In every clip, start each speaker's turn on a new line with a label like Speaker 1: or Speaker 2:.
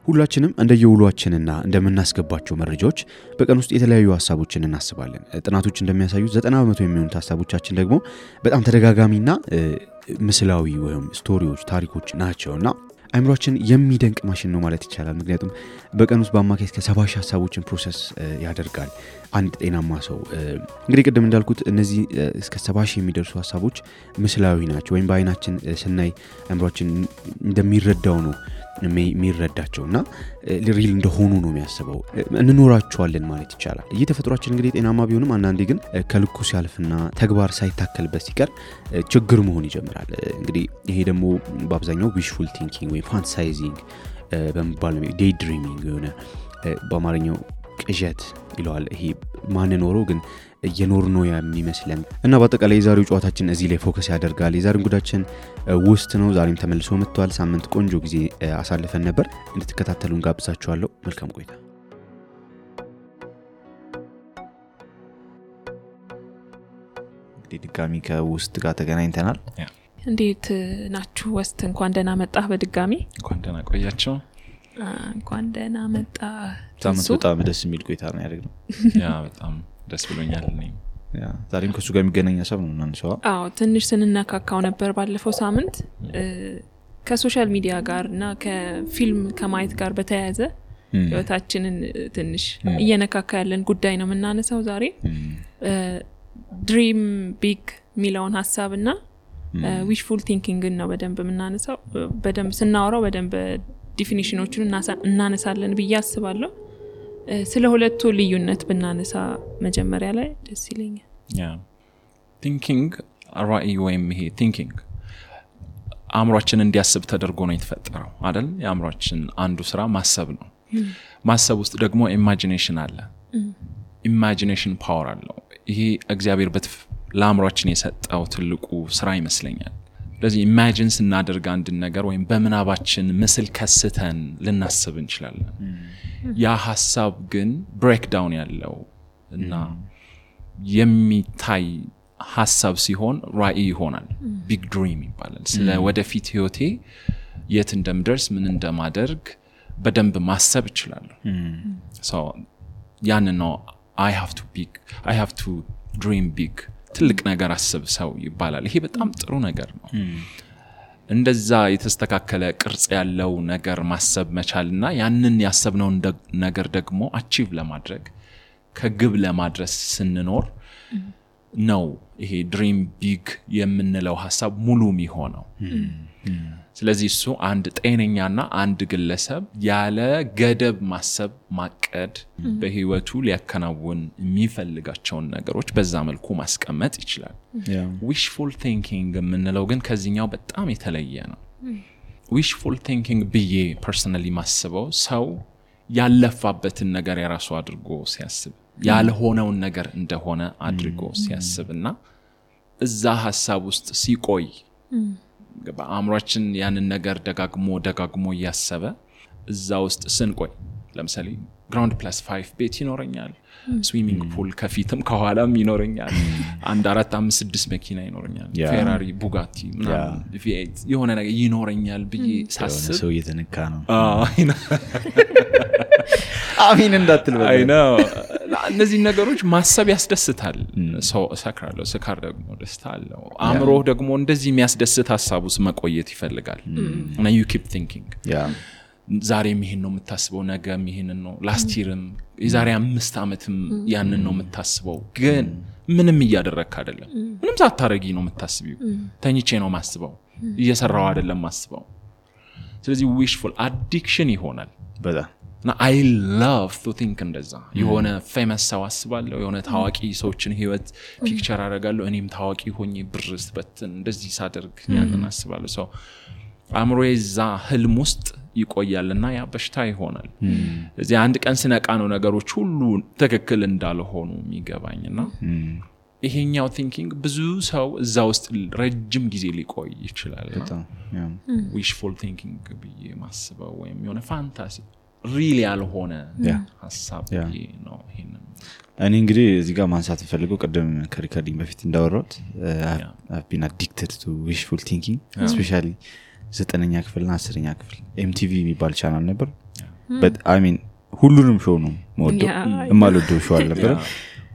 Speaker 1: ሁላችንም እንደየውሏችንና እንደምናስገባቸው መረጃዎች በቀን ውስጥ የተለያዩ ሐሳቦችን እናስባለን። ጥናቶች እንደሚያሳዩት 90% የሚሆኑት ሐሳቦቻችን ደግሞ በጣም ተደጋጋሚና ምስላዊ ወይም ስቶሪዎች ታሪኮች ናቸውና አይምሮአችን የሚደንቅ ማሽን ነው ማለት ይቻላል። ምክንያቱም በቀን ውስጥ በአማካይ እስከ 70 ሐሳቦችን ፕሮሰስ ያደርጋል አንድ ጤናማ ሰው። እንግዲህ ቅድም እንዳልኩት እነዚህ እስከ 70 የሚደርሱ ሐሳቦች ምስላዊ ናቸው ወይም በአይናችን ስናይ አይምሮአችን እንደሚረዳው ነው የሚረዳቸውና ሪል እንደሆኑ ነው የሚያስበው። እንኖራቸዋለን ማለት ይቻላል። ተፈጥሯችን እንግዲህ ጤናማ ቢሆንም አንዳንዴ ግን ከልኩ ሲያልፍና ተግባር ሳይታከልበት ሲቀር ችግር መሆን ይጀምራል። እንግዲህ ይሄ ደግሞ በአብዛኛው ዊሽፉል ቲንኪንግ ወይ ፋንታሳይዚንግ በመባል ዴይ ድሪሚንግ የሆነ በአማርኛው ቅዠት ይለዋል። ይሄ ማንኖረው ግን እየኖር ነው የሚመስለን እና በአጠቃላይ የዛሬው ጨዋታችን እዚህ ላይ ፎከስ ያደርጋል። የዛሬው ጉዳችን ውስጥ ነው። ዛሬም ተመልሶ መጥቷል። ሳምንት ቆንጆ ጊዜ አሳልፈን ነበር። እንድትከታተሉን ጋብዛችኋለሁ። መልካም ቆይታ። እንግዲህ ድጋሚ ከውስጥ ጋር ተገናኝተናል።
Speaker 2: እንዴት ናችሁ? ውስጥ እንኳን ደህና መጣህ። በድጋሚ
Speaker 3: እንኳን ደህና ቆያችሁ።
Speaker 2: እንኳን ደህና መጣ።
Speaker 1: ሳምንት በጣም ደስ የሚል ቆይታ ነው ያደረግነው።
Speaker 3: ያ በጣም ደስ ብሎኛል።
Speaker 1: ዛሬም ከሱ ጋር የሚገናኝ ሐሳብ ነው እናንሳው።
Speaker 2: ትንሽ ስንነካካው ነበር ባለፈው ሳምንት ከሶሻል ሚዲያ ጋርና ከፊልም ከማየት ጋር በተያያዘ ህይወታችንን ትንሽ እየነካካ ያለን ጉዳይ ነው የምናነሳው ዛሬ። ድሪም ቢግ ሚለውን ሐሳብና ዊሽፉል ቲንኪንግ ነው በደንብ የምናነሳው። በደንብ ስናወራው በደንብ ዲፊኒሽኖቹን እናነሳለን ብዬ አስባለሁ። ስለ ሁለቱ ልዩነት ብናነሳ መጀመሪያ ላይ ደስ ይለኛል።
Speaker 3: ቲንኪንግ ራዕይ ወይም ይሄ ቲንኪንግ አእምሮአችን እንዲያስብ ተደርጎ ነው የተፈጠረው አይደል? የአእምሮአችን አንዱ ስራ ማሰብ ነው። ማሰብ ውስጥ ደግሞ ኢማጂኔሽን አለ። ኢማጂኔሽን ፓወር አለው። ይሄ እግዚአብሔር ለአእምሮአችን የሰጠው ትልቁ ስራ ይመስለኛል። ስለዚህ ኢማጂን ስናደርግ አንድ ነገር ወይም በምናባችን ምስል ከስተን ልናስብ እንችላለን። ያ ሐሳብ ግን ብሬክዳውን ያለው እና የሚታይ ሐሳብ ሲሆን ራዕይ ይሆናል። ቢግ ድሪም ይባላል። ስለ ወደፊት ህይወቴ የት እንደምደርስ ምን እንደማደርግ በደንብ ማሰብ እችላለሁ። ያን ነው I have to dream big። ትልቅ ነገር አስብ ሰው ይባላል። ይሄ በጣም ጥሩ ነገር ነው። እንደዛ የተስተካከለ ቅርጽ ያለው ነገር ማሰብ መቻልና ያንን ያሰብነው ነገር ደግሞ አቺቭ ለማድረግ ከግብ ለማድረስ ስንኖር ነው ይሄ ድሪም ቢግ የምንለው ሐሳብ ሙሉ የሚሆነው። ስለዚህ እሱ አንድ ጤነኛና አንድ ግለሰብ ያለ ገደብ ማሰብ ማቀድ በህይወቱ ሊያከናውን የሚፈልጋቸውን ነገሮች በዛ መልኩ ማስቀመጥ ይችላል። ዊሽፉል ቲንኪንግ የምንለው ግን ከዚህኛው በጣም የተለየ ነው። ዊሽፉል ቲንኪንግ ብዬ ፐርሰናሊ ማስበው ሰው ያለፋበትን ነገር የራሱ አድርጎ ሲያስብ ያልሆነውን ነገር እንደሆነ አድርጎ ሲያስብና እዛ ሐሳብ ውስጥ ሲቆይ በአእምሮአችን ያንን ነገር ደጋግሞ ያሰበ እዛ ውስጥ ስንቆይ ለምሳሌ ግራውንድ + 5 ቤት ይኖረኛል፣ ስዊሚንግ ፑል ከፊትም ከኋላም ይኖረኛል፣ 1 4 5 6 መኪና ይኖረኛል፣ ፌራሪ ቡጋቲ ምናምን V8 የሆነ ነገር ይኖረኛል ብዬ ሳስብ
Speaker 1: ሰው እየተነካ ነው። አሚን እንዳትል በቃ
Speaker 3: ነው። እነዚህ ነገሮች ማሰብ ያስደስታል። ሰው ሰክራለሁ፣ ስካር ደግሞ ደስታ አለው። አእምሮ ደግሞ እንደዚህ የሚያስደስት ሐሳቡስ መቆየት ይፈልጋል እና you keep thinking። ዛሬም ይሄን ነው የምታስበው፣ ነገም ይሄን ነው፣ ላስት ይርም የዛሬ 5 ዓመትም ያንን ነው የምታስበው። ግን ምንም እያደረክ አይደለም። ምንም ሳታረጊ ነው የምታስቢው። ተኝቼ ነው ማስበው፣ እየሰራው አይደለም ማስበው። ስለዚህ ዊሽፉል አዲክሽን ይሆናል በጣም እና I love to think እንደዛ የሆነ ፌመስ ሰው አስባለሁ፣ የሆነ ታዋቂ ሰዎችን ህይወት ፒክቸር አደርጋለሁ፣ እኔም ታዋቂ ሆኜ ብርስ በትን እንደዚህ ሳደርግ ያንን አስባለሁ። ሰው አእምሮዬ እዛ ህልም ውስጥ ይቆያልና ያ በሽታ ይሆናል። እዚህ አንድ ቀን ስነቃ ነው ነገሮች ሁሉ ትክክል እንዳልሆኑ የሚገባኝና ይሄኛው ቲንኪንግ ብዙ ሰው እዛ ውስጥ ረጅም ጊዜ ሊቆይ ይችላል። ዊሽፉል ቲንኪንግ ብዬ ማስበው ወይም የሆነ ፋንታሲ ሪሊ ያልሆነ ሐሳብ ነው። ይሄንን
Speaker 1: እኔ እንግዲህ እዚህ ጋር ማንሳት ፈልገው ቀደም ከሪከርዲንግ በፊት እንዳወራሁት I've been addicted to wishful thinking especially 9ኛ ክፍልና 10ኛ ክፍል MTV የሚባል ቻናል ነበር። but I mean ሁሉንም ሾው ነው ሞዶ የማልወደው ሾው አልነበረ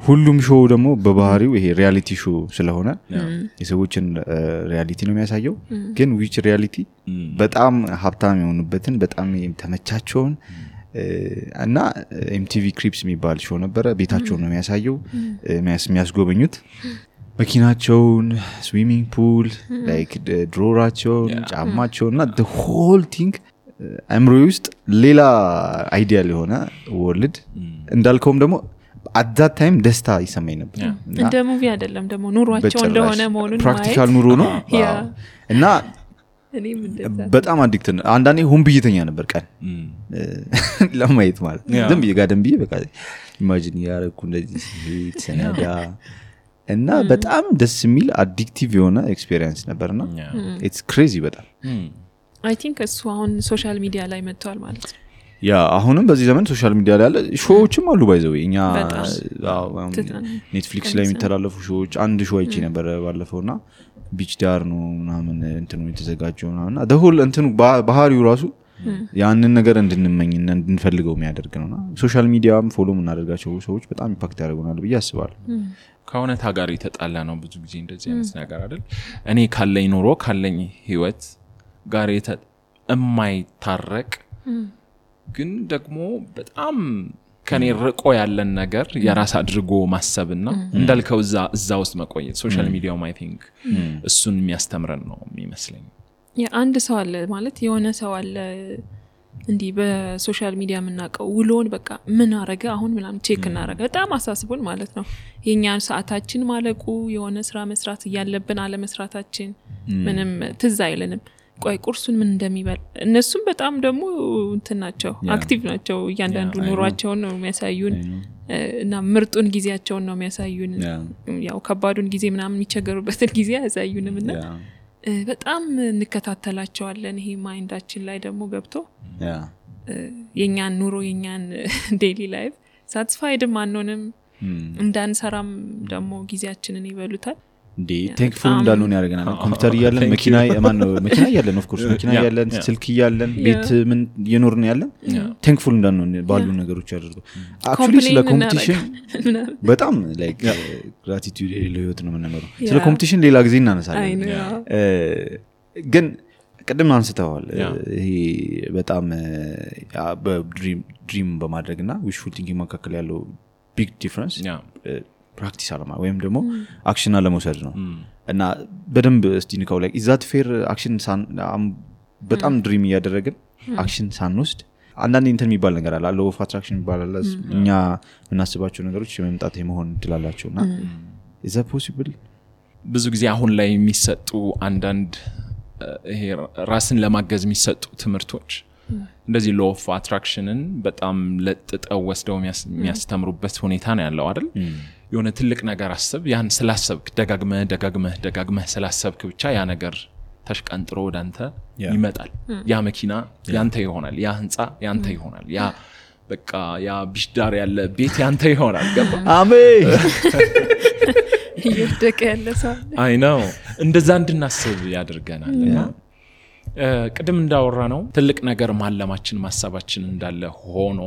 Speaker 1: ሁሉም ሾው ደግሞ በባህሪው ይሄ ሪያሊቲ ሾው ስለሆነ የሰዎችን ሪያሊቲ ነው የሚያሳየው ግን which reality በጣም ሀብታም የሆኑበትን በጣም ተመቻቸውን እና MTV Cribs የሚባል ሾው ነበረ ቤታቸውን ነው የሚያሳየው የሚያስጎበኙት መኪናቸውን ስዊሚንግ ፑል ላይክ ድሮራቸውን ጫማቸውን እና the whole thing አምሮ ውስጥ ሌላ አይዲያል የሆነ ወርልድ እንዳልከውም ደግሞ at that time ደስታ ይሰማኝ ነበር
Speaker 2: እንደ ሙቪ አይደለም ደግሞ ኑሯቸው እንደሆነ መሆኑን
Speaker 1: ፕራክቲካል ኑሮ ነው እና በጣም አዲክት አንዳንዴ ሆም ብይተኛ ነበር ቀን ለማየት ማለት ዝም ይጋደም ብዬ በቃ ኢማጂን ያረኩ እንደዚህ ሰነዳ እና በጣም ደስ የሚል አዲክቲቭ የሆነ ኤክስፒሪየንስ ነበርና it's crazy በጣም
Speaker 2: I think እሱ አሁን ሶሻል ሚዲያ ላይ መጥቷል ማለት ነው
Speaker 1: ያ አሁንም በዚህ ዘመን ሶሻል ሚዲያ ላይ ያለ ሾዎችም አሉ ባይዘው እኛ ኔትፍሊክስ ላይ የሚተላለፉ ሾዎች አንድ ሾው አይቼ ነበር ባለፈውና ቢች ዳር ነው ምናምን እንትኑ የተዘጋጀውና the whole እንትኑ ባህሪው ራሱ ያንን ነገር እንድንመኝና እንድንፈልገው የሚያደርግ ነውና ሶሻል ሚዲያም ፎሎ እናደርጋቸው ሰዎች በጣም ኢምፓክት ያደርጉናል ብዬ አስባለሁ
Speaker 3: ከእውነታ ጋር የተጣላ ነው ብዙ ጊዜ እንደዚህ አይነት ነገር አይደል እኔ ካለኝ ኑሮ ካለኝ ህይወት ጋር የማይታረቅ ግን ደግሞ በጣም ከኔ ርቆ ያለን ነገር የራስ አድርጎ ማሰብና እንዳልከው እዛ ውስጥ መቆየት ሶሻል ሚዲያው I think እሱን የሚያስተምረን ነው የሚመስለኝ
Speaker 2: አንድ ሰው አለ ማለት የሆነ ሰው አለ እንዲ በሶሻል ሚዲያ ምናቀው ውሎን በቃ ምን አረገ አሁን ምናምን ቼክ እናረጋ በጣም አሳስቦን ማለት ነው የኛን ሰዓታችን ማለቁ የሆነ ስራ መስራት ያለብን አለ መስራታችን ምንም ትዝ አይለንም ቆይ ቁርሱን ምን እንደሚበል እነሱም በጣም ደግሞ እንትናቸው አክቲቭ ናቸው እያንዳንዱ ኑሯቸውን ነው የሚያሳዩን እና ምርጡን ጊዜያቸውን ነው የሚያሳዩን ያው ከባዱን ጊዜ ምናምን የሚቸገሩበትን ጊዜ ያሳዩንምና በጣም እንከታተላቸዋለን ይሄ ማይንዳችን ላይ ደግሞ ገብቶ የኛን ኑሮ የኛን ዴይሊ ላይፍ ሳቲስፋይድም አንሆንም እንዳንሰራም ደግሞ ጊዜያችንን ይበሉታል
Speaker 1: እንዴ ቴንክፉል እንዳልሆነ ያደርገናል ኮምፒውተር ያለን መኪና መኪና ያለን ኦፍ ኮርስ መኪና ያለን ስልክ ያለን ቤት ምን የኖርን ያለን ቴንክፉል እንዳልሆነ ባሉ ነገሮች ያደርገው አክቹሊ ስለ ኮምፒቲሽን በጣም ላይክ ግራቲቲዩድ ለህይወት ነው የምንኖረው ስለ ኮምፒቲሽን ሌላ ጊዜ እናነሳለን ግን ቀደም አንስተዋል ይሄ በጣም በድሪም በማድረግና ዊሽፉል ቲንኪንግ መካከል ያለው ቢግ ዲፈረንስ ፕራክቲስ አለማ ወይም ደግሞ አክሽን አለመውሰድ ነው እና በደንብ እስቲ ንካው ላይ ኢዛት ፌር አክሽን በጣም ድሪም ያደረግን አክሽን ሳንወስድ አንዳንድ እንትን የሚባል ነገር አለ law of attraction ይባላል እኛ እናስባቸው ነገሮች የመምጣት የመሆን ትላላቸውና is that possible
Speaker 3: ብዙ ጊዜ አሁን ላይ የሚሰጡ አንዳንድ ይሄ ራስን ለማገዝ የሚሰጡ ትምህርቶች እንደዚህ law of attractionን በጣም ለጥጠው ወስደው የሚያስተምሩበት ሁኔታ ነው ያለው አይደል የሆነ ትልቅ ነገር አስብ ያን ስላሰብክ ደጋግመህ ስላሰብክ ብቻ ያ ነገር ተሽቀንጥሮ ወዳንተ ይመጣል ያ መኪና ያንተ ይሆናል ያ ህንጻ ያንተ ይሆናል ያ በቃ ያ ቢሽዳር ያለ ቤት ያንተ ይሆናል ገባ
Speaker 1: አሜን
Speaker 2: ይወደቀ ያለ ሰው
Speaker 3: አይ ነው እንደዛ እንድናስብ ያደርገናልና ቅድም እንዳወራ ነው ትልቅ ነገር ማለማችን ማሰባችን እንዳለ ሆኖ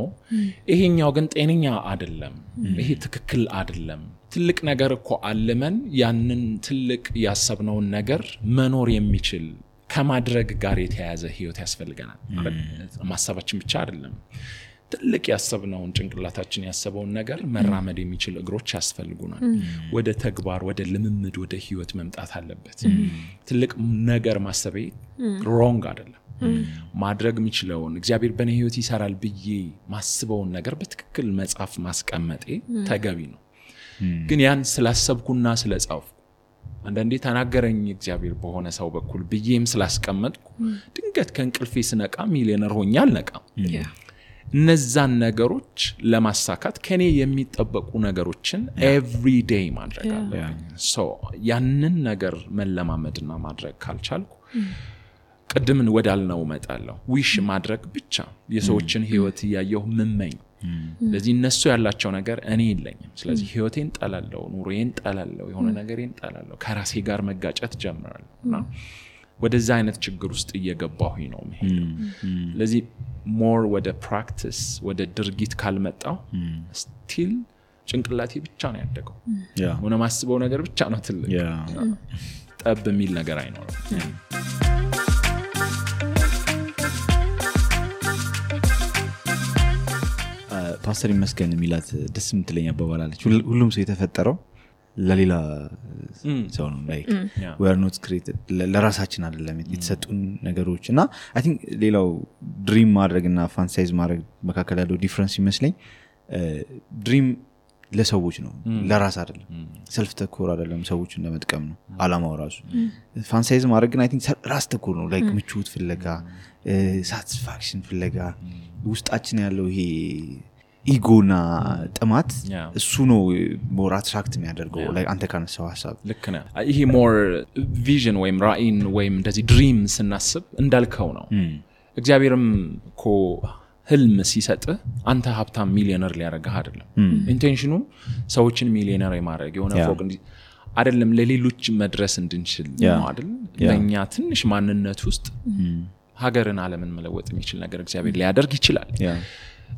Speaker 3: ይሄኛው ግን ጤነኛ አይደለም ይሄ ትክክል አይደለም ትልቅ ነገር እኮ አለመን ያንን ትልቅ ያሰብነው ነገር መኖር የሚችል ከማድረግ ጋር የተያያዘ ህይወት ያስፈልገናል ማሰባችን ብቻ አይደለም ትልቅ ያሰብነው ጭንቅላታችን ያሰበውን ነገር መራመድ የሚችል እግሮች ያስፈልጉናል ወደ ተግባር ወደ ልምምድ ወደ ህይወት መምጣት አለበት ትልቅ ነገር ማሰቤ ሮንግ አይደለም ማድረግ የሚችለውን እግዚአብሔር በኔ ህይወት ይሰራል ብዬ ማስበውን ነገር በትክክል መጻፍ ማስቀመጤ ተገቢ ነው ግን ያን ስላሰብኩና ስለጻፍኩ አንዳንዴ ተናገረኝ እግዚአብሔር በሆነ ሰው በኩል ብዬም ስላስቀመጥኩ ድንገት ከእንቅልፌ ስነቃ ሚሊዮነር ሆኜ አልነቃም እነዛን ነገሮች ለማሳካት ከኔ የሚጠበቁ ነገሮችን ኤቭሪ ዴይ ማድረግ አለብኝ ሶ ያንን ነገር መለማመድና ማድረግ ካልቻልኩ ቀድምን ወዳልነው መጣለው ዊሽ ማድረግ ብቻ የሰዎችን ህይወት ያየው ምመኝ ለዚህ እነሱ ያላቸው ነገር እኔ የለኝም ስለዚህ ህይወቴን ጠላለው ኑሮዬን ጠላለው የሆነ ነገሬን ጠላለው ከራሴ ጋር መጋጨት ጀምራለሁና ወደዛ አይነት ችግር ውስጥ እየገባሁኝ ነው መሄድ ለዚህ more ወደ ፕራክቲስ ወደ ድርጊት ካልመጣው ስቲል ጭንቅላቴ ብቻ ነው ያደገው ሆነ ማስበው ነገር ብቻ ነው ትልቅ ጠብ የሚል ነገር አይኖርም
Speaker 1: ፓስተር ይመስገን የሚላት ደስ የምትለኝ አባባላለች ሁሉም ሰው የተፈጠረው ለሌላ ሰው ነው like we are not created ለራሳችን አይደለም የተሰጡን ነገሮች እና I think ሌላው ድሪም ማድረግና ፋንታይዝ ማድረግ መካከል ያለው ዲፈረንስ ይመስለኝ ድሪም ለሰዎች ነው ለራስ አይደለም ሰልፍ ተኮር አይደለም ሰዎችን ለመጥቀም ነው አላማው ራሱ ፋንታይዝ ማድረግ ግን I think ራስ ተኮር ነው like ምቾት ፍለጋ ሳቲስፋክሽን ፍለጋ ውስጣችን ያለው ይሄ ኢጎና ጥማት እሱ ነው ሞር አትራክት የሚያደርገው like አንተ ካነሳው ሐሳብ
Speaker 3: ልክ ነህ ይሄ ሞር ቪዥን ወይም ራኢን ወይም እንደዚህ ድሪም ስናስብ እንዳልከው ነው እግዚአብሔርም እኮ ህልም ሲሰጥ አንተ ሀብታም ሚሊዮነር ሊያረጋህ አይደለም ኢንቴንሽኑ ሰዎችን ሚሊዮነር የማድረግ የሆነ ፎቅ አይደለም ለሌሎች መድረስ እንድንችል ነው አይደል ለኛ ትንሽ ማንነት ውስጥ ሀገርን ዓለምን መለወጥ የሚችል ነገር እግዚአብሔር ሊያደርግ ይችላል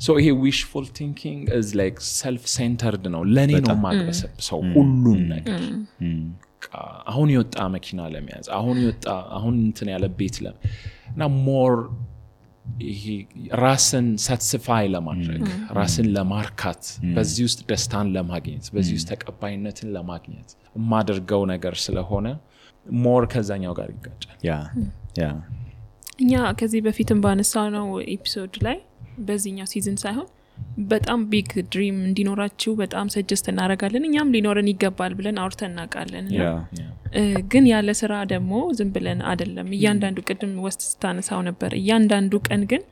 Speaker 3: so he wishful thinking is like self centered ነው ለኔ ነው ማግበሰብ ሰው ሁሉን ነገር አሁን ይወጣ መኪና ለመያዝ አሁን እንትን ያለ ቤት እና more ይሄ ራስን satisfy ለማድረግ ራስን ለማርካት በዚህ ውስጥ ደስታን ለማግኘት በዚህ ውስጥ ተቀባይነትን ለማግኘት ማደርገው ነገር ስለሆነ more ከዛኛው ጋር ይጋጫል
Speaker 1: ያ
Speaker 2: እኛ ከዚህ በፊትም ባነሳው ነው ኤፒሶድ ላይ በዚህኛው ሲዝን ሳይሆን በጣም ቢግ ድሪም እንዲኖራችሁ በጣም ሰጀስት እናደርጋለን እኛም ሊኖረን ይገባል ብለን አውርተን እናውቃለን ግን ያለ ስራ ደግሞ ዝም ብለን አይደለም እያንዳንዱ ቅድም ወስት ስታነሳው ነበር እያንዳንዱ ቀን ግን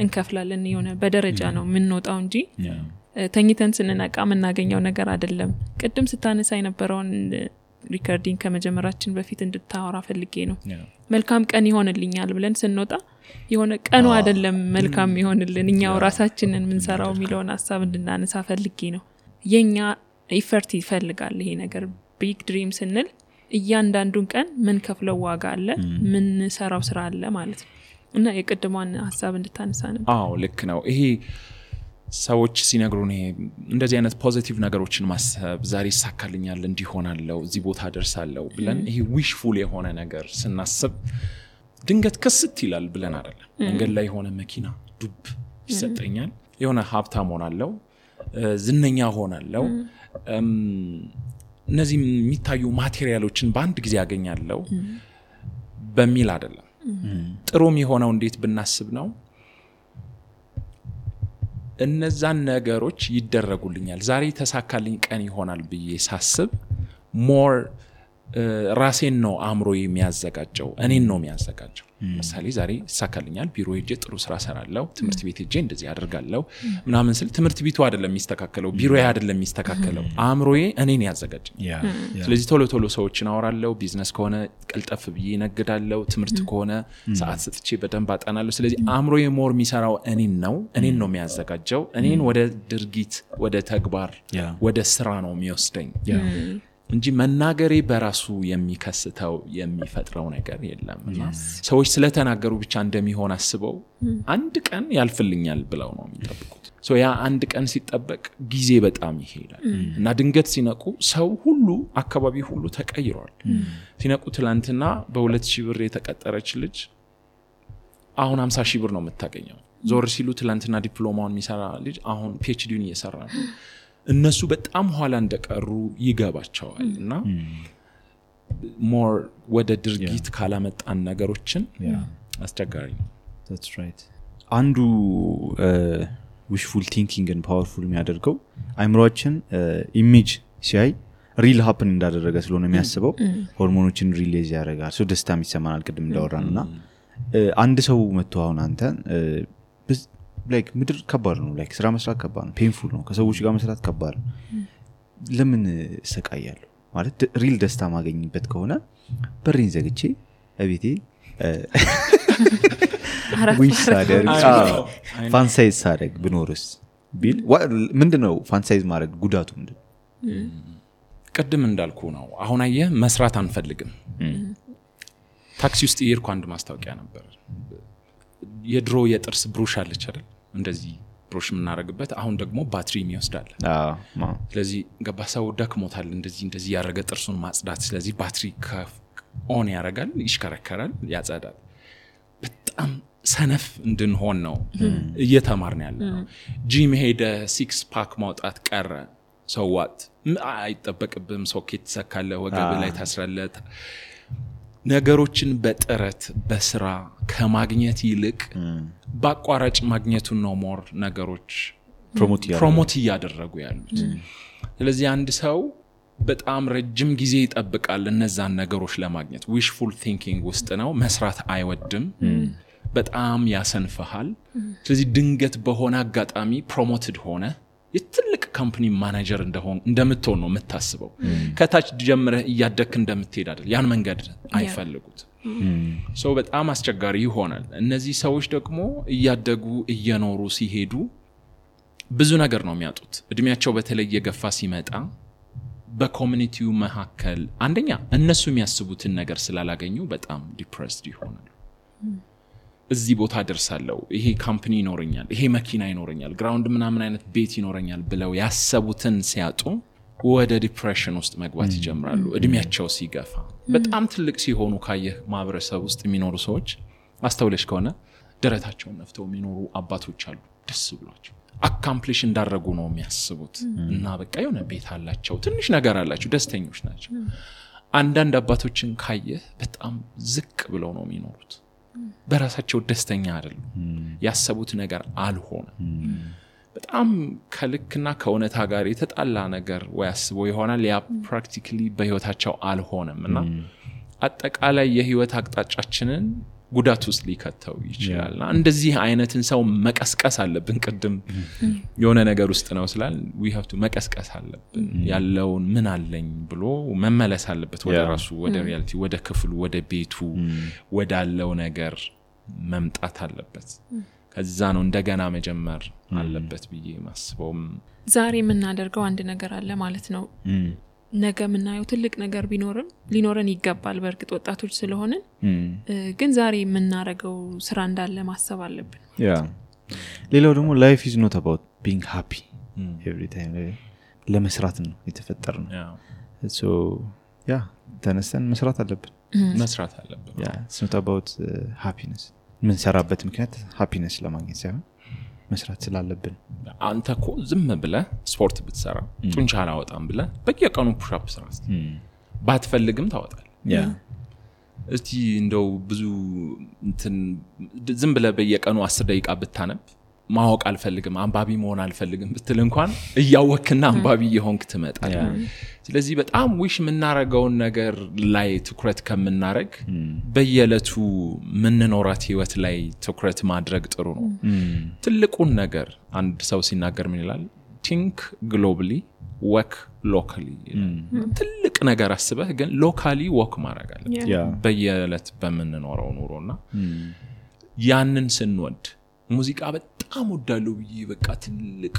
Speaker 2: እንከፍላለን የሆነ በደረጃ ነው የምንወጣው እንጂ ተኝተን ስንነቃ የምናገኘው ነገር አይደለም ቅድም ስታነሳ የነበረውን ሪከርዲንግ ከመጀመራችን በፊት እንድታወራ ፈልጌ ነው መልካም ቀን ይሆንልኛል ብለን ስንወጣ የሆነ ቀኑ አይደለም መልካም ይሆንልን እኛው ራሳችንን ምንሰራው ሚሊዮን ሐሳብ እንድናነሳ ፈልጌ ነው የኛ ኢፈርት ይፈልጋል ይሄ ነገር ቢግ ድሪም ስንል እያንዳንዱን ቀን ምን ከፍለው ዋጋ አለ ምን ሰራው ስራ አለ ማለት ነው እና የቅድሟን ሐሳብ እንድታነሳ ነው
Speaker 3: ልክ ነው ይሄ ሰዎች ሲነግሩን ይሄ እንደዚህ አይነት ፖዚቲቭ ነገሮችን ማሰብ ዛሬ ይሳካልኛል እንዲሆናለው እዚህ ቦታ ደርሳለው ብለን ይሄ ዊሽፉል የሆነ ነገር ስናስብ ድንገት ከስት ይላል ብለን አይደለም መንገድ ላይ የሆነ መኪና ዱብ ይሰጠኛል የሆነ ሀብታም ሆናለው ዝነኛ ሆናለው እነዚህ የሚታዩ ማቴሪያሎችን በአንድ ጊዜ ያገኛለው በሚል አይደለም ጥሩም የሆነው እንዴት ብናስብ ነው እነዛን ነገሮች ይደረጉልኛል ዛሬ ተሳካልኝ ቀን ይሆናል ብዬ ሳስብ ሞር ራሴን ነው አምሮ የሚያዘጋጀው እኔን ነው የሚያዘጋጀው ምሳሌ ዛሬ ተሳካልኛል ቢሮ ሄጄ ጥሩ ስራ ሰራለው ትምህርት ቤት ሄጄ እንደዚህ አደርጋለሁ ምናምን ስል ትምህርት ቤቱ አይደለም የሚስተካከለው ቢሮዬ አይደለም የሚስተካከለው አምሮዬ እኔን ያዘጋጅ ስለዚህ ቶሎ ሰዎችን አወራለሁ ቢዝነስ ከሆነ ቀልጠፍ ብዬ ነግዳለሁ ትምህርት ከሆነ ሰዓት ሰጥቼ በደንብ አጠናለሁ ስለዚህ አምሮዬ ሞር የሚሰራው እኔን ነው የሚያዘጋጀው እኔን ወደ ድርጊት ወደ ተግባር ወደ ስራ ነው የሚወስደኝ እንጂ መናገሬ በራሱ የሚከስተው የሚፈጥረው ነገር የለምና ሰዎች ስለተናገሩ ብቻ እንደሚሆን አስበው አንድ ቀን ያልፍልኛል ብለው ነው የሚጠብቁት ያ አንድ ቀን ሲጠበቅ ጊዜ በጣም ይሄዳል እና ድንገት ሲነቁ ሰው ሁሉ አካባቢ ሁሉ ተቀይሯል ሲነቁ ትላንትና በ2000 ብር የተቀጠረች ልጅ አሁን 50,000 ብር ነው የምታገኘው ዞር ሲሉ ትላንትና ዲፕሎማውን የሚሰራ ልጅ አሁን PhD-ን እየሰራ ነው እነሱ በጣም ኋላ እንደቀሩ ይገባቸዋል እና ሞር ወደ ድርጊት ካላመጣን ነገሮችን አስቸጋሪ ነው
Speaker 1: that's right አንዱ wishful thinking and powerful የሚያደርገው አይምሮአችን ኢሜጅ ሲያይ ሪል ሃፕን እንዳደረገ ስለሆነ የሚያስበው ሆርሞኖችን ሪሊዝ ያደርጋል ሶ ደስታም ይሰማናል ቅድም እንዳወራንና አንድ ሰው መጥቶ አሁን አንተ like ምድር ከባድ ነው like ስራ መስራት ከባድ ነው ፔንፉል ነው ከሰዎች ጋር መስራት ከባድ ነው ለምን ሰቃያለሁ ማለት ሪል ደስታ ማገኝበት ከሆነ በሪን ዘግቼ እቤቴ ዊሽ ሳደርግ ፋንታይዝ ሳደርግ ብኖርስ ቢል ምንድነው ፋንታይዝ ማድረግ ጉዳቱ ምንድነው
Speaker 3: ቅድም እንዳልኩ ነው አሁን አየህ መስራት አንፈልግም ታክሲ ውስጥ ይርኩ አንድ ማስታወቂያ ነበር የድሮ የጥርስ ብሩሽ አለች አይደል እንደዚህ ብሩሽ ምናረግበት አሁን ደግሞ ባትሪ የሚወስዳል ስለዚህ ገባሳው ደክሞታል እንደዚህ ያረገ ጥርሱን ማጽዳት ስለዚህ ባትሪ ኦን ያረጋል ይሽከረከራል ያጸዳል በጣም ሰነፍ እንድንሆን ነው እየተማርን ያለነው ጂም ሄደ 6 ፓክ ማውጣት ቀረ ሰዋት አይጠበቅብም ሶኬት ተሰካለ ወገብ ላይ ታስራለህ ነገሮችን በጥረት በስራ ከማግኘት ይልቅ ባቋራጭ ማግኘቱን ነው ሞር ነገሮች ፕሮሞት ያደረጉ ያሉት ስለዚህ አንድ ሰው በጣም ረጅም ጊዜ ይጠብቃል እነዛን ነገሮች ለማግኘት ዊሽፉል ቲንኪንግ ውስጥ ነው መስራት አይወድም በጣም ያሰንፈሃል ስለዚህ ድንገት በሆነ አጋጣሚ ፕሮሞትድ ሆነ የትልቅ ካምፓኒ ማኔጀር እንደምትሆን ነው የምታስበው ከታች ጀምረህ እያደክ እንደምትሄድ አይደል ያን መንገድ አይፈልጉት ሶ በጣም አስቸጋሪ ይሆናል እነዚህ ሰዎች ደግሞ እያደጉ እየኖሩ ሲሄዱ ብዙ ነገር ነው የሚያጡት እድሜያቸው በተለይ የገፋ ሲመጣ በኮሚኒቲው መሐከል አንደኛ እነሱ የሚያስቡትን ነገር ስላላገኙ በጣም ዲፕሬስድ ይሆናሉ እዚህ ቦታ ደርሳለሁ ይሄ ካምፓኒ ይኖረኛል ይሄ መኪና ይኖረኛል ግራውንድ ምናምን አይነት ቤት ይኖረኛል ብለው ያሰቡትን ሲያጡ ወደ ዲፕሬሽን ውስጥ መግባት ይጀምራሉ እድሜያቸው ሲገፋ በጣም ትልቅ ሲሆኑ ካየህ ማህበረሰብ ውስጥ የሚኖሩ ሰዎች አስተውለሽ ከሆነ ደረታቸውን ነፍተው የሚኖሩ አባቶች አሉ ደስ ብሏቸው አካምፕሊሽ እንዳረጉ ነው የሚያስቡት እና በቃ የሆነ ቤት አላቸው ትንሽ ነገር አላቸው ደስተኞች ናቸው አንዳንድ አባቶችን ካየህ በጣም ዝቅ ብለው ነው የሚኖሩት በራሳቸው ደስተኛ አይደሉም ያሰቡት ነገር አልሆነ በጣም ከልክና ከእውነታ ጋር የተጣላ ነገር ወያስበው ይሆናል ያ ፕራክቲካሊ በህይወታቸው አልሆነምና አጠቃላይ የህይወት አቅጣጫችንን ጉዳት ውስጥ ሊከተው ይችላልና እንደዚህ አይነትን ሰው መቀስቀስ አለብን ቅድም የሆነ ነገር ውስጥ ነው ስላል we have to መቀስቀስ አለብን ያለውን ምን አለኝ ብሎ መመለስ አለበት ወደ ራሱ ወደ ሪያሊቲ ወደ ክፍሉ ወደ ቤቱ ወዳለው ነገር መምጣት አለበት ከዛ ነው እንደገና መጀመር አለበት ብዬ ማስበው
Speaker 2: ዛሬ የምናደርገው አንድ ነገር አለ ማለት ነው ነገ ምናየው ትልቅ ነገር ሊኖረን ይገባል በርግጥ ወጣቶች ስለሆነን ግን ዛሬ የምናረገው ስራ እንዳለ ማሰብ አለብን
Speaker 1: ሌላው ደግሞ life is not about being happy every time ለመስራት ነው የተፈጠርነው so ተነስተን መስራት አለብን it's not about happiness ምን ሰራበት ምክንያት happiness ለማግኘት ሳይሆን መስራት ስላለብን
Speaker 3: አንተ እኮ ዝም ብለህ ስፖርት ብትሰራ ጡንቻ አላወጣም ብለህ በየቀኑ ፑሽ አፕ ስራ ባትፈልግም ታወጣለህ እስቲ እንደው ብዙ ዝም ብለህ በየቀኑ 10 ደቂቃ ብታነብ ማወቅ አልፈልግም አንባቢ መሆን አልፈልግም ብትል እንኳን እያወክና አንባቢ የሆንክ ትመጣለህ ስለዚህ በጣም ዊሽ ምናረጋው ነገር ላይ ትኩረት ከምናረግ በየለቱ ምንኖራት ህይወት ላይ ትኩረት ማድረግ ጥሩ ነው ትልቁን ነገር አንድ ሰው ሲናገር ምን ይላል think globally work locally ትልቅ ነገር አስበህ ግን locally work ማድረግ አለበት በየለት በመንኖረው ኑሮና ያንን ስንወድ ሙዚቃ በጣም ወዳለው ብዬ በቃ ትልቅ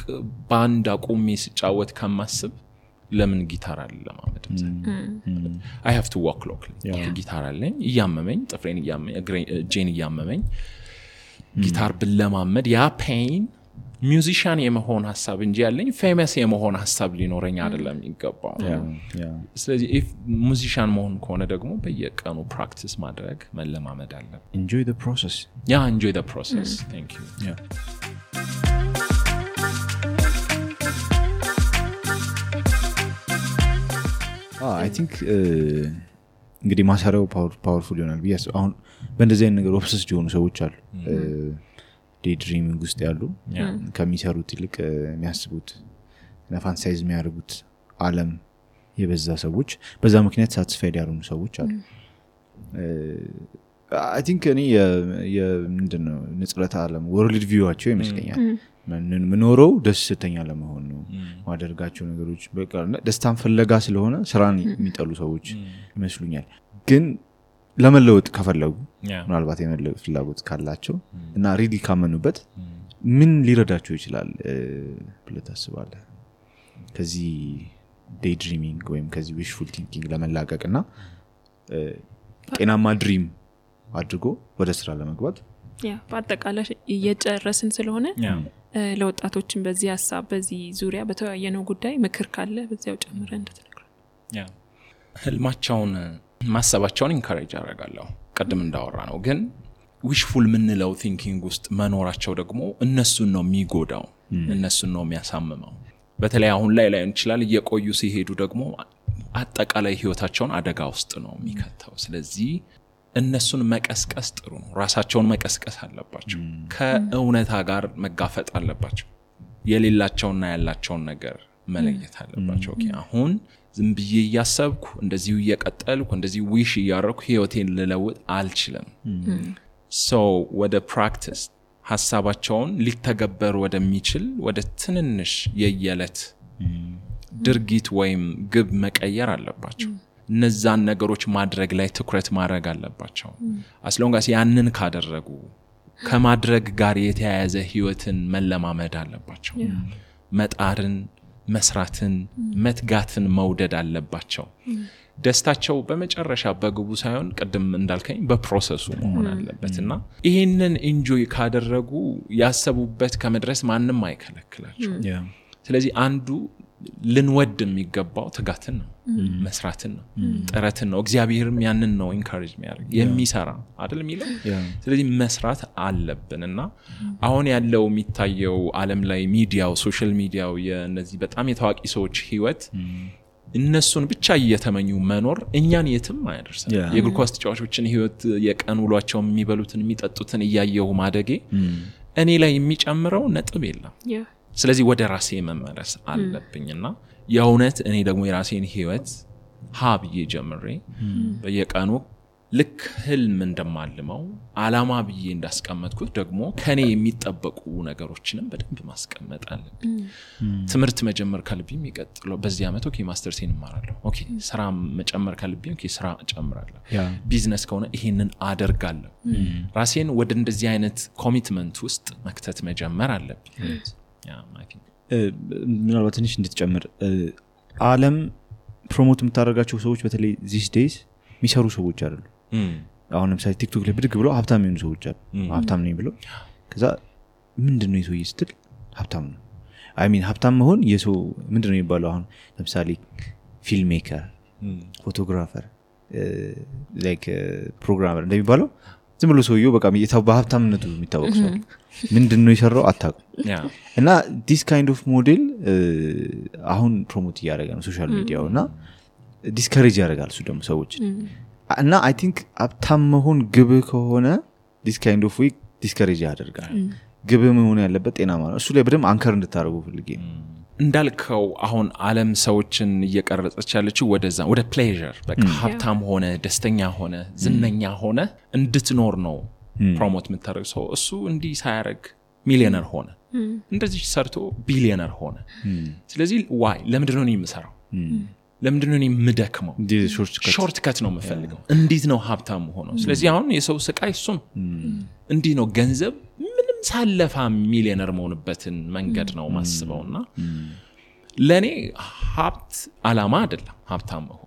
Speaker 3: ባንድ አቆሜ ስጫወት ከማስብ ለምን ጊታር አለ ለማመድ I have to walk locally ጊታር አለኝ እያመመኝ ጥፍሬን እያመመኝ ጄን እያመመኝ ጊታር ብለማመድ ያ ፔን ሚውዚሻን የመሆን ሐሳብ እንጂ ያለኝ ፌመስ የመሆን ሐሳብ ሊኖረኝ አይደለም ይገባው ስለዚህ if ሙዚሻን መሆን ከሆነ ደግሞ በየቀኑ ፕራክቲስ ማድረግ መለማመድ አለ
Speaker 1: enjoy the process
Speaker 3: enjoy the process thank you
Speaker 1: I think እንግዲህ ማሰራው ፓወርፉል ይሆናል ቢያስ አሁን በእንደዚህ አይነት ነገር ኦብሰስድ የሆኑ ሰዎች አሉ ዴይድሪሚንግ ውስጥ ያሉ ከሚሰሩት ይልቅ የሚያስቡት ፋንታሳይዝ የሚያደርጉት ዓለም የበዛ ሰዎች በዛ ምክንያት ሳቲስፋይድ ያልሆኑ ሰዎች አሉ I think እኔ ምንድነው ንጽረታ ዓለም ወርልድ ቪዋቸው ይመስለኛል ምንኖረው ደስተኛ ለመሆን ነው ማደርጋቸው ነገሮች በቃ ደስታን ፍለጋ ስለሆነ ስራን የሚጠሉ ሰዎች ይመስሉኛል ግን ለመለወጥ ከፈለጉ ምናልባት የመለወጥ ፍላጎት ካላቸው እና ሪሊ ካመኑበት ምን ሊረዳቸው ይችላል ብለህ ታስባለህ ከዚህ ዴይድሪሚንግ ወይም ከዚህ ዊሽፉል ቲንኪንግ ለመላቀቅና ጤናማ ድሪም አድርጎ ወደ ስራ ለመግባት
Speaker 2: ያ በአጠቃላይ እየጨረስን ስለሆነ ለወጣቶችን በዚህ ሐሳብ በዚህ ዙሪያ በተወያየነው ጉዳይ ምክር ካለ በዚያው ጨምረን እንድትነግሩ
Speaker 3: ያ ህልማቸውን ማሰባቸውን ኢንካሬጅ አደርጋለሁ ቀደም እንዳወራ ነው ግን ዊሽፉል ምንለው ቲንኪንግ ውስጥ መኖራቸው ደግሞ እነሱን ነው የሚጎዳው እነሱን ነው የሚያሳምመው በተለይ አሁን ላይ እንችላል እየቆዩ ሲሄዱ ደግሞ አጠቃላይ ህይወታቸውን አደጋ ውስጥ ነው የሚከተው ስለዚህ እነሱን መቀስቀስ ጥሩ ነው ራሳቸውን መቀስቀስ አለባቸው ከእውነታ ጋር መጋፈጥ አለባቸው የሌላቸውና ያላቸውን ነገር መለየት አለባቸው ኦኬ አሁን ዝም ብዬ ያሰብኩ እንደዚሁ እየቀጠልኩ እንደዚሁ ዊሽ ያረኩ ህይወቴን ልለውጥ አልችልም so ወደ ፕራክቲስ ሐሳባቸውን ሊተገበር ወደሚችል ወደ ትንንሽ የየለት ድርጊት ወይም ግብ መቀየር አለባቸው እነዛን ነገሮች ማድረግ ላይ ትኩረት ማድረግ አለባቸው አስሎንጋስ ያንን ካደረጉ ከማድረግ ጋር የተያያዘ ህይወትን መለማመድ አለባቸው መጣርን መስራትን መትጋትን መውደድ አለባቸው ደስታቸው በመጨረሻ በግቡ ሳይሆን ቀደም እንዳልከኝ በፕሮሰሱ መሆን አለበትና ይሄንን ኢንጆይ ካደረጉ ያሰቡበት ከመድረስ ማንንም አይከለክላቸው ስለዚህ አንዱ ልንወድ የሚገባው ትጋትን ነው መስራትን ነው ጥረትን ነው እግዚአብሔርም ያንን ነው ኢንካሬጅ የሚያደርግ የሚሰራ አይደል የሚለው ስለዚህ መስራት አለብንና አሁን ያለው የሚታየው ዓለም ላይ ሚዲያው ሶሻል ሚዲያው የነዚህ በጣም የታዋቂ ሰዎች ህይወት እነሱን ብቻ እየተመኙ መኖር እኛን የትም አይደርሰም የእግር ኳስ ተጫዋቾችን ህይወት የቀን ውሏቸው የሚበሉትን የሚጠጡትን እያየው ማደጌ እኔ ላይ የሚጨምረው ነጥብ የለም ስለዚህ ወደ ራሴ መመለስ አለብኝና የእውነት እኔ ደግሞ የራሴን ህይወት ሀብዬ ጀምሬ በየቀኑ ልክ ህልም እንደማልመው አላማ ብዬ እንዳስቀመጥኩት ደግሞ ከኔ የሚጠበቁ ነገሮችንም በደንብ ማስቀመጥ አለብኝ ትምህርት መጀመር ካለብኝ ይቀጥለው በዚህ አመት ኦኬ ማስተርሴን እማራለሁ ኦኬ ስራ መጨመር ካለብኝ ኦኬ ስራ እጨምራለሁ ቢዝነስ ከሆነ ይሄንን አደርጋለሁ ራሴን ወደ እንደዚህ አይነት ኮሚትመንት ውስጥ መክተት መጀመር አለብኝ
Speaker 1: ምናልባት ትንሽ እንድትጨምር ዓለም ፕሮሞት የምታደርጋቸው ሰዎች በተለይ these days የሚሰሩ ሰዎች አይደሉ አሁን ለምሳሌ ቲክቶክ ላይ ብድግ ብለው ሀብታም የሆኑ ሰዎች አሉ ሀብታም ነኝ ብለው ከዛ ምንድነው የሰው ይስትል ሀብታም ነው አይ ሚን ሀብታም መሆን የሰው ምንድነው የሚባለው አሁን ለምሳሌ ፊልም ሜከር ፎቶግራፈር ላይክ ፕሮግራመር እንደሚባለው ዝም ብሎ ሰውየው በቃ በሀብታምነቱ የሚታወቅ ሰው ምንድነው የሰራው አታውቁም እና this kind of model አሁን ፕሮሞት እያደረገ ነው ሶሻል ሚዲያውና ዲስከሬጅ ያደርጋል እሱ ደግሞ ሰዎች እና አይ ቲንክ ሀብታም መሆን ግብ ከሆነ this kind of way ዲስከሬጅ ያደርጋል ግብ መሆን ያለበት ጤናማ ነው እሱ ላይ በደም አንከር እንድታረጉ ፈልጌ
Speaker 3: እንዳልከው አሁን ዓለም ሰዎችን እየቀረጸች ያለችው ወደዛ ወደ ፕሌዠር በቃ ሀብታም ሆነ ደስተኛ ሆነ ዝነኛ ሆነ እንድትኖር ነው ፕሮሞት የምታደርገው ሰው እሱ እንዲህ ሳያረግ ሚሊዮነር ሆነ እንደዚህ ሰርቶ ቢሊዮነር ሆነ ስለዚህ ዋይ ለምንድነው እኔ የምሰራው ለምንድነው እኔ የምደክመው ሾርት ከት ነው የምፈልገው እንዴት ነው ሀብታም ሆኖ ስለዚህ አሁን የሰው ስቃይ እሱም እንዲህ ነው ገንዘብ ምንም ሳለፋ ሚሊዮነር መሆንበትን መንገድ ነው ማስበውና ለኔ ሀብት አላማ አይደለም ሀብታም መሆን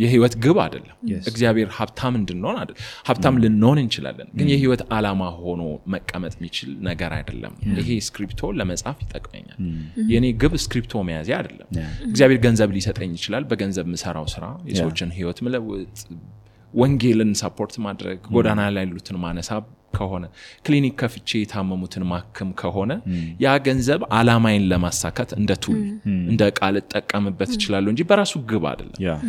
Speaker 3: የህይወት ግብ አይደለም እግዚአብሔር ሀብታም እንድንሆን አይደል ሀብታም ልንሆን እንችላለን ግን የህይወት አላማ ሆኖ መቀመጥ የሚችል ነገር አይደለም ይሄ ስክሪፕቶ ለመጻፍ ይጠቅመኛል የኔ ግብ ስክሪፕቶ መያዝ አይደለም እግዚአብሔር ገንዘብ ሊሰጠኝ ይችላል በገንዘብ ምሰራው ስራ የሰዎችን ህይወት መለወጥ ወንጌልን ሰፖርት ማድረግ ጎዳና ላይ ያሉትን ማነሳብ ከሆነ ክሊኒክ ከፍቼ የታመሙትን ማከም ከሆነ ያ ገንዘብ አላማዬን ለማሳካት እንደ ቱል እንደ ቃል ተጠቀምበት ይችላል እንጂ በራሱ ግብ አይደለም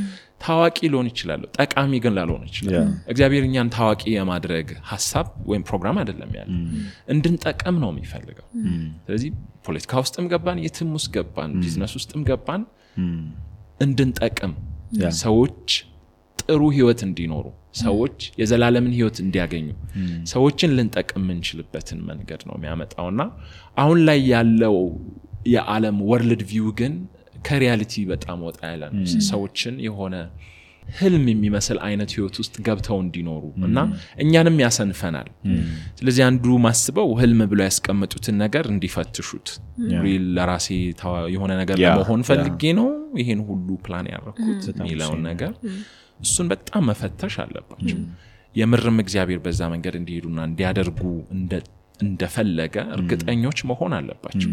Speaker 3: ታዋቂ ሊሆን ይችላል ጠቃሚ ግን ላልሆን ይችላል እግዚአብሔር እኛን ታዋቂ የማድረግ ሐሳብ ወይም ፕሮግራም አይደለም ያለው እንድንጠቀም ነው የሚፈልገው ስለዚህ ፖለቲካ ውስጥም ገባን የትም ውስጥ ገባን ቢዝነስ ውስጥም ገባን እንድንጠቀም ሰዎች ጥሩ ህይወት እንዲኖሩ ሰዎች የዘላለምን ህይወት እንዲያገኙ ሰዎችን ልንጠቅም እንችልበትን መንገድ ነው የሚያመጣውና አሁን ላይ ያለው የዓለም ወርልድ ቪው ግን ከሪያሊቲ በጣም ወጣ ያለ ነው ሰዎችን የሆነ ህልም የሚመስል አይነት ህይወት ውስጥ ገብተው እንዲኖሩ እና እኛንም ያሰንፈናል ስለዚህ አንዱ ማስበው ህልም ብለው ያስቀመጡትን ነገር እንዲፈትሹት ሪል ለራሴ የሆነ ነገር ለመሆን ፈልጌ ነው ይሄን ሁሉ ፕላን ያደረኩት የሚለው ነገር እሱን በጣም መፈተሽ አለባቸው የምርም እግዚአብሔር በዛ መንገድ እንዲሄዱና እንዲያደርጉ እንደፈለገ እርግጠኞች መሆን አለባቸው።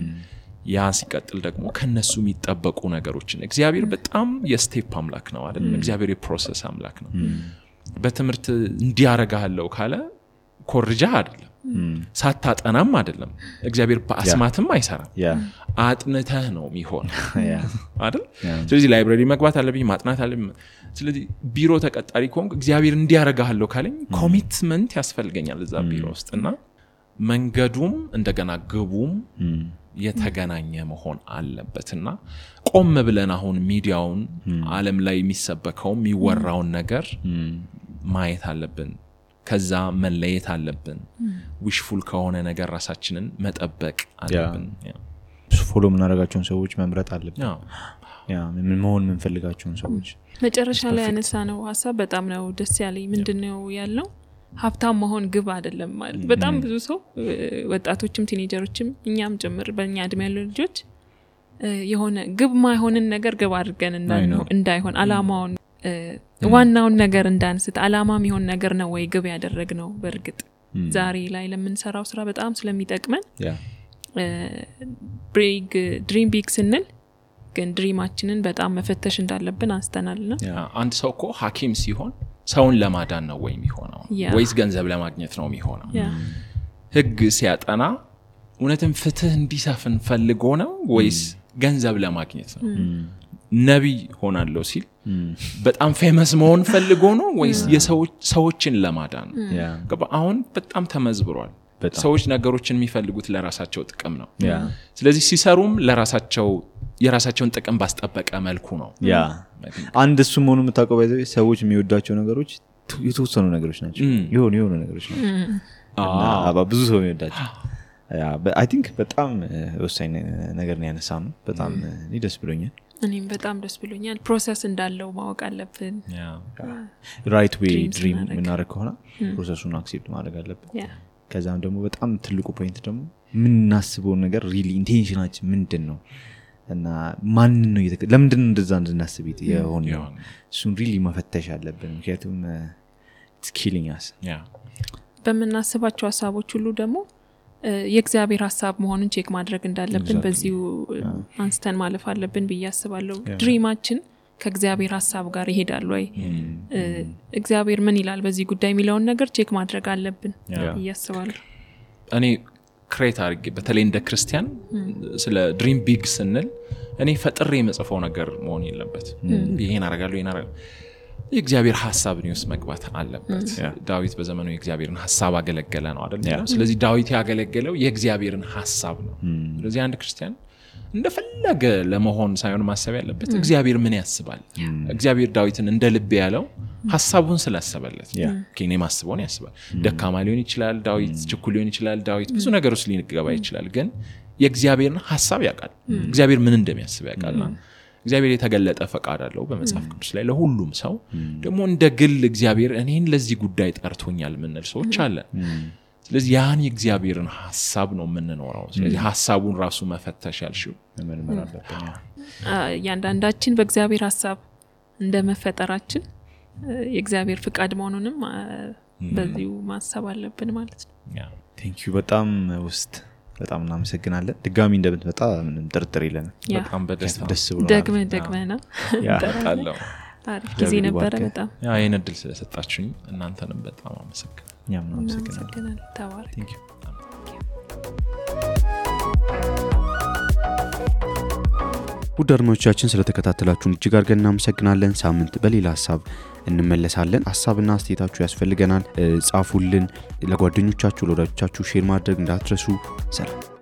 Speaker 3: ያ ሲቀጥል ደግሞ ከነሱ የሚጠበቁ ነገሮችን እግዚአብሔር በጣም የስቴፕ አምላክ ነው አይደል? እግዚአብሔር የፕሮሰስ አምላክ ነው። በትምህርት እንዲያረጋለው ካለ ኮርጃ አይደለም፣ ሳታጠናም አይደለም። እግዚአብሔር በአስማትም አይሰራም። አጥንተህ ነው የሚሆን አይደል? ስለዚህ ላይብራሪ መግባት አለብኝ፣ ማጥናት አለብኝ። ስለዚህ ቢሮ ተቀጣሪ ከሆንኩ እግዚአብሔር እንዲያረጋለው ካለኝ ኮሚትመንት ያስፈልገኛል እዛ ቢሮ ውስጥና መንገዱም እንደገና ግቡም የተገናኘ መሆን አለበትና ቆም ብለን አሁን ሚዲያውን ዓለም ላይ የሚሰበከው የሚወራውን ነገር ማየት አለብን። ከዛ መለየት አለብን። ዊሽፉል ከሆነ ነገር ራሳችንን መጠበቅ አለብን።
Speaker 1: ፎሎ ምናረጋቸውን ሰዎች መምረጥ አለብን። ምን መሆን ምንፈልጋቸውን ሰዎች
Speaker 2: መጨረሻ ላይ ያነሳነው ሐሳብ በጣም ነው ደስ ያለኝ። ምንድነው ያለው? ሀብታም መሆን ግብ አይደለም ማለት። በጣም ብዙ ሰው ወጣቶችም ቲኔጀሮችም እኛም ጭምር በእኛ እድሜ ያሉ ልጆች የሆነ ግብ ማይሆንን ነገር ግብ አድርገን እንዳይሆን አላማውን ዋናውን ነገር እንዳንስት አላማ የሚሆን ነገር ነው ወይ ግብ ያደረግነው። በርግጥ ዛሬ ላይ ለምንሰራው ስራ በጣም ስለሚጠቅመን ድሪም ቢግ ስንል ግን ድሪማችንን በጣም መፈተሽ እንዳለብን አንስተናልና
Speaker 3: አንድ ሰው እኮ ሐኪም ሲሆን ሰውን ለማዳን ነው ወይ የሚሆነው ወይስ ገንዘብ ለማግኘት ነው የሚሆነው? ህግ ሲያጠና እውነትም ፍትህ እንዲሰፍን ፈልጎ ነው ወይስ ገንዘብ ለማግኘት ነው? ነብይ ሆናለሁ ሲል በጣም ፌመስ መሆን ፈልጎ ነው ወይስ የሰዎችን ለማዳን ነው? አሁን በጣም ተመዝብሯል። ሰዎች ነገሮችን የሚፈልጉት ለራሳቸው ጥቅም ነው። ስለዚህ ሲሰሩም የራሳቸውን ጥቅም ባስጠበቀ መልኩ ነው።
Speaker 1: አንድ እሱ መሆኑ የምታውቀው ባይዘው ሰዎች የሚወዷቸው ነገሮች የተወሰኑ ነገሮች ናቸው። የሆኑ ነገሮች ናቸው። ብዙ ሰው የሚወዳቸው አይ ቲንክ በጣም ወሳኝ ነገር ነው ያነሳነው። በጣም ደስ ብሎኛል።
Speaker 2: እኔም በጣም ደስ ብሎኛል። ፕሮሰስ እንዳለው ማወቅ አለብን።
Speaker 1: ራይት ዌይ ድሪም ምናረግ ከሆነ ፕሮሰሱን አክሴፕት ማድረግ አለብን። ከዛም ደግሞ በጣም ትልቁ ፖይንት ደግሞ ምናስበው ነገር ሪሊ ኢንቴንሽናችን ምንድነው እና ማን ነው ለምንድን ነው እንደዛ እንድናስብ የሆነው እሱን ሪሊ መፈተሽ አለብን። ምክንያቱም it's killing us
Speaker 2: በመናስባቸው ሐሳቦች ሁሉ ደግሞ የእግዚአብሔር ሐሳብ መሆኑን ቼክ ማድረግ እንዳለብን በዚሁ አንስተን ማለፍ አለብን ብዬ አስባለሁ። ድሪማችን ከእግዚአብሔር ሐሳብ ጋር ይሄዳል ወይ? እግዚአብሔር ምን ይላል በዚህ ጉዳይ የሚለውን ነገር ቼክ ማድረግ አለብን ብዬ አስባለሁ።
Speaker 3: እኔ ክሬት አድርጌ በተለይ እንደ ክርስቲያን ስለ ድሪም ቢግ ስንል እኔ ፈጥሬ የመጽፈው ነገር መሆን የለበት። ይሄን አደርጋለሁ የእግዚአብሔር ሐሳብ ነው መግባት አለበት። ዳዊት በዘመኑ የእግዚአብሔርን ሐሳብ አገለገለ ነው አይደል? ስለዚህ ዳዊት ያገለገለው የእግዚአብሔርን ሐሳብ ነው። ስለዚህ አንድ ክርስቲያን እንደፈለገ ለመሆን ሳይሆን ማሰብ ያለበት እግዚአብሔር ምን ያስባል። እግዚአብሔር ዳዊትን እንደ ልብ ያለው ሐሳቡን ስላሰበለት ከኔ ማስበውን ያስባል። ደካማ ሊሆን ይችላል ዳዊት፣ ችኩል ሊሆን ይችላል ዳዊት፣ ብዙ ነገሮች ሊንገባ ይችላል። ግን የእግዚአብሔርን ሐሳብ ያውቃል። እግዚአብሔር ምን እንደሚያስብ ያውቃልና እግዚአብሔር የተገለጠ ፈቃድ አለው በመጽሐፍ ቅዱስ ላይ ለሁሉም ሰው። ደግሞ እንደ ግል እግዚአብሔር እኔን ለዚህ ጉዳይ ጠርቶኛል ምንል ሰዎች አለን። ስለዚህ ያን የእግዚአብሔርን ሐሳብ ነው የምንኖረው። ስለዚህ ሐሳቡን ራሱ መፈተሽ ያልሽው መመርመር አለብን።
Speaker 2: ያንዳንዳችን በእግዚአብሔር ሐሳብ እንደመፈጠራችን የእግዚአብሔር ፍቃድ መሆኑንም በዚሁ ማሰብ አለብን ማለት ነው።
Speaker 1: ቴንክ ዩ በጣም በጣም እናመሰግናለን። ድጋሚ እንደምትመጣ ምንም ጥርጥር የለንም።
Speaker 3: በጣም በደስታ
Speaker 1: ደስ ብሎናል።
Speaker 2: ደግመና ታጣለው አሪፍ ጊዜ ነበረ። በጣም
Speaker 3: ይሄን እድል ስለሰጣችሁኝ እናንተንም በጣም አመሰግናለሁ።
Speaker 1: እኛም እናመሰግናለን።
Speaker 2: ተባረክ።
Speaker 3: ቴንክ ዩ።
Speaker 1: ውድ አድማጮቻችን ስለተከታተላችሁን እጅግ አድርገን እናመሰግናለን። ሳምንት በሌላ ሐሳብ እንመለሳለን። ሐሳብና አስተያየታችሁ ያስፈልገናል። ጻፉልን። ለጓደኞቻችሁ ለወዳጆቻችሁ ሼር ማድረግ እንዳትረሱ። ሰላም።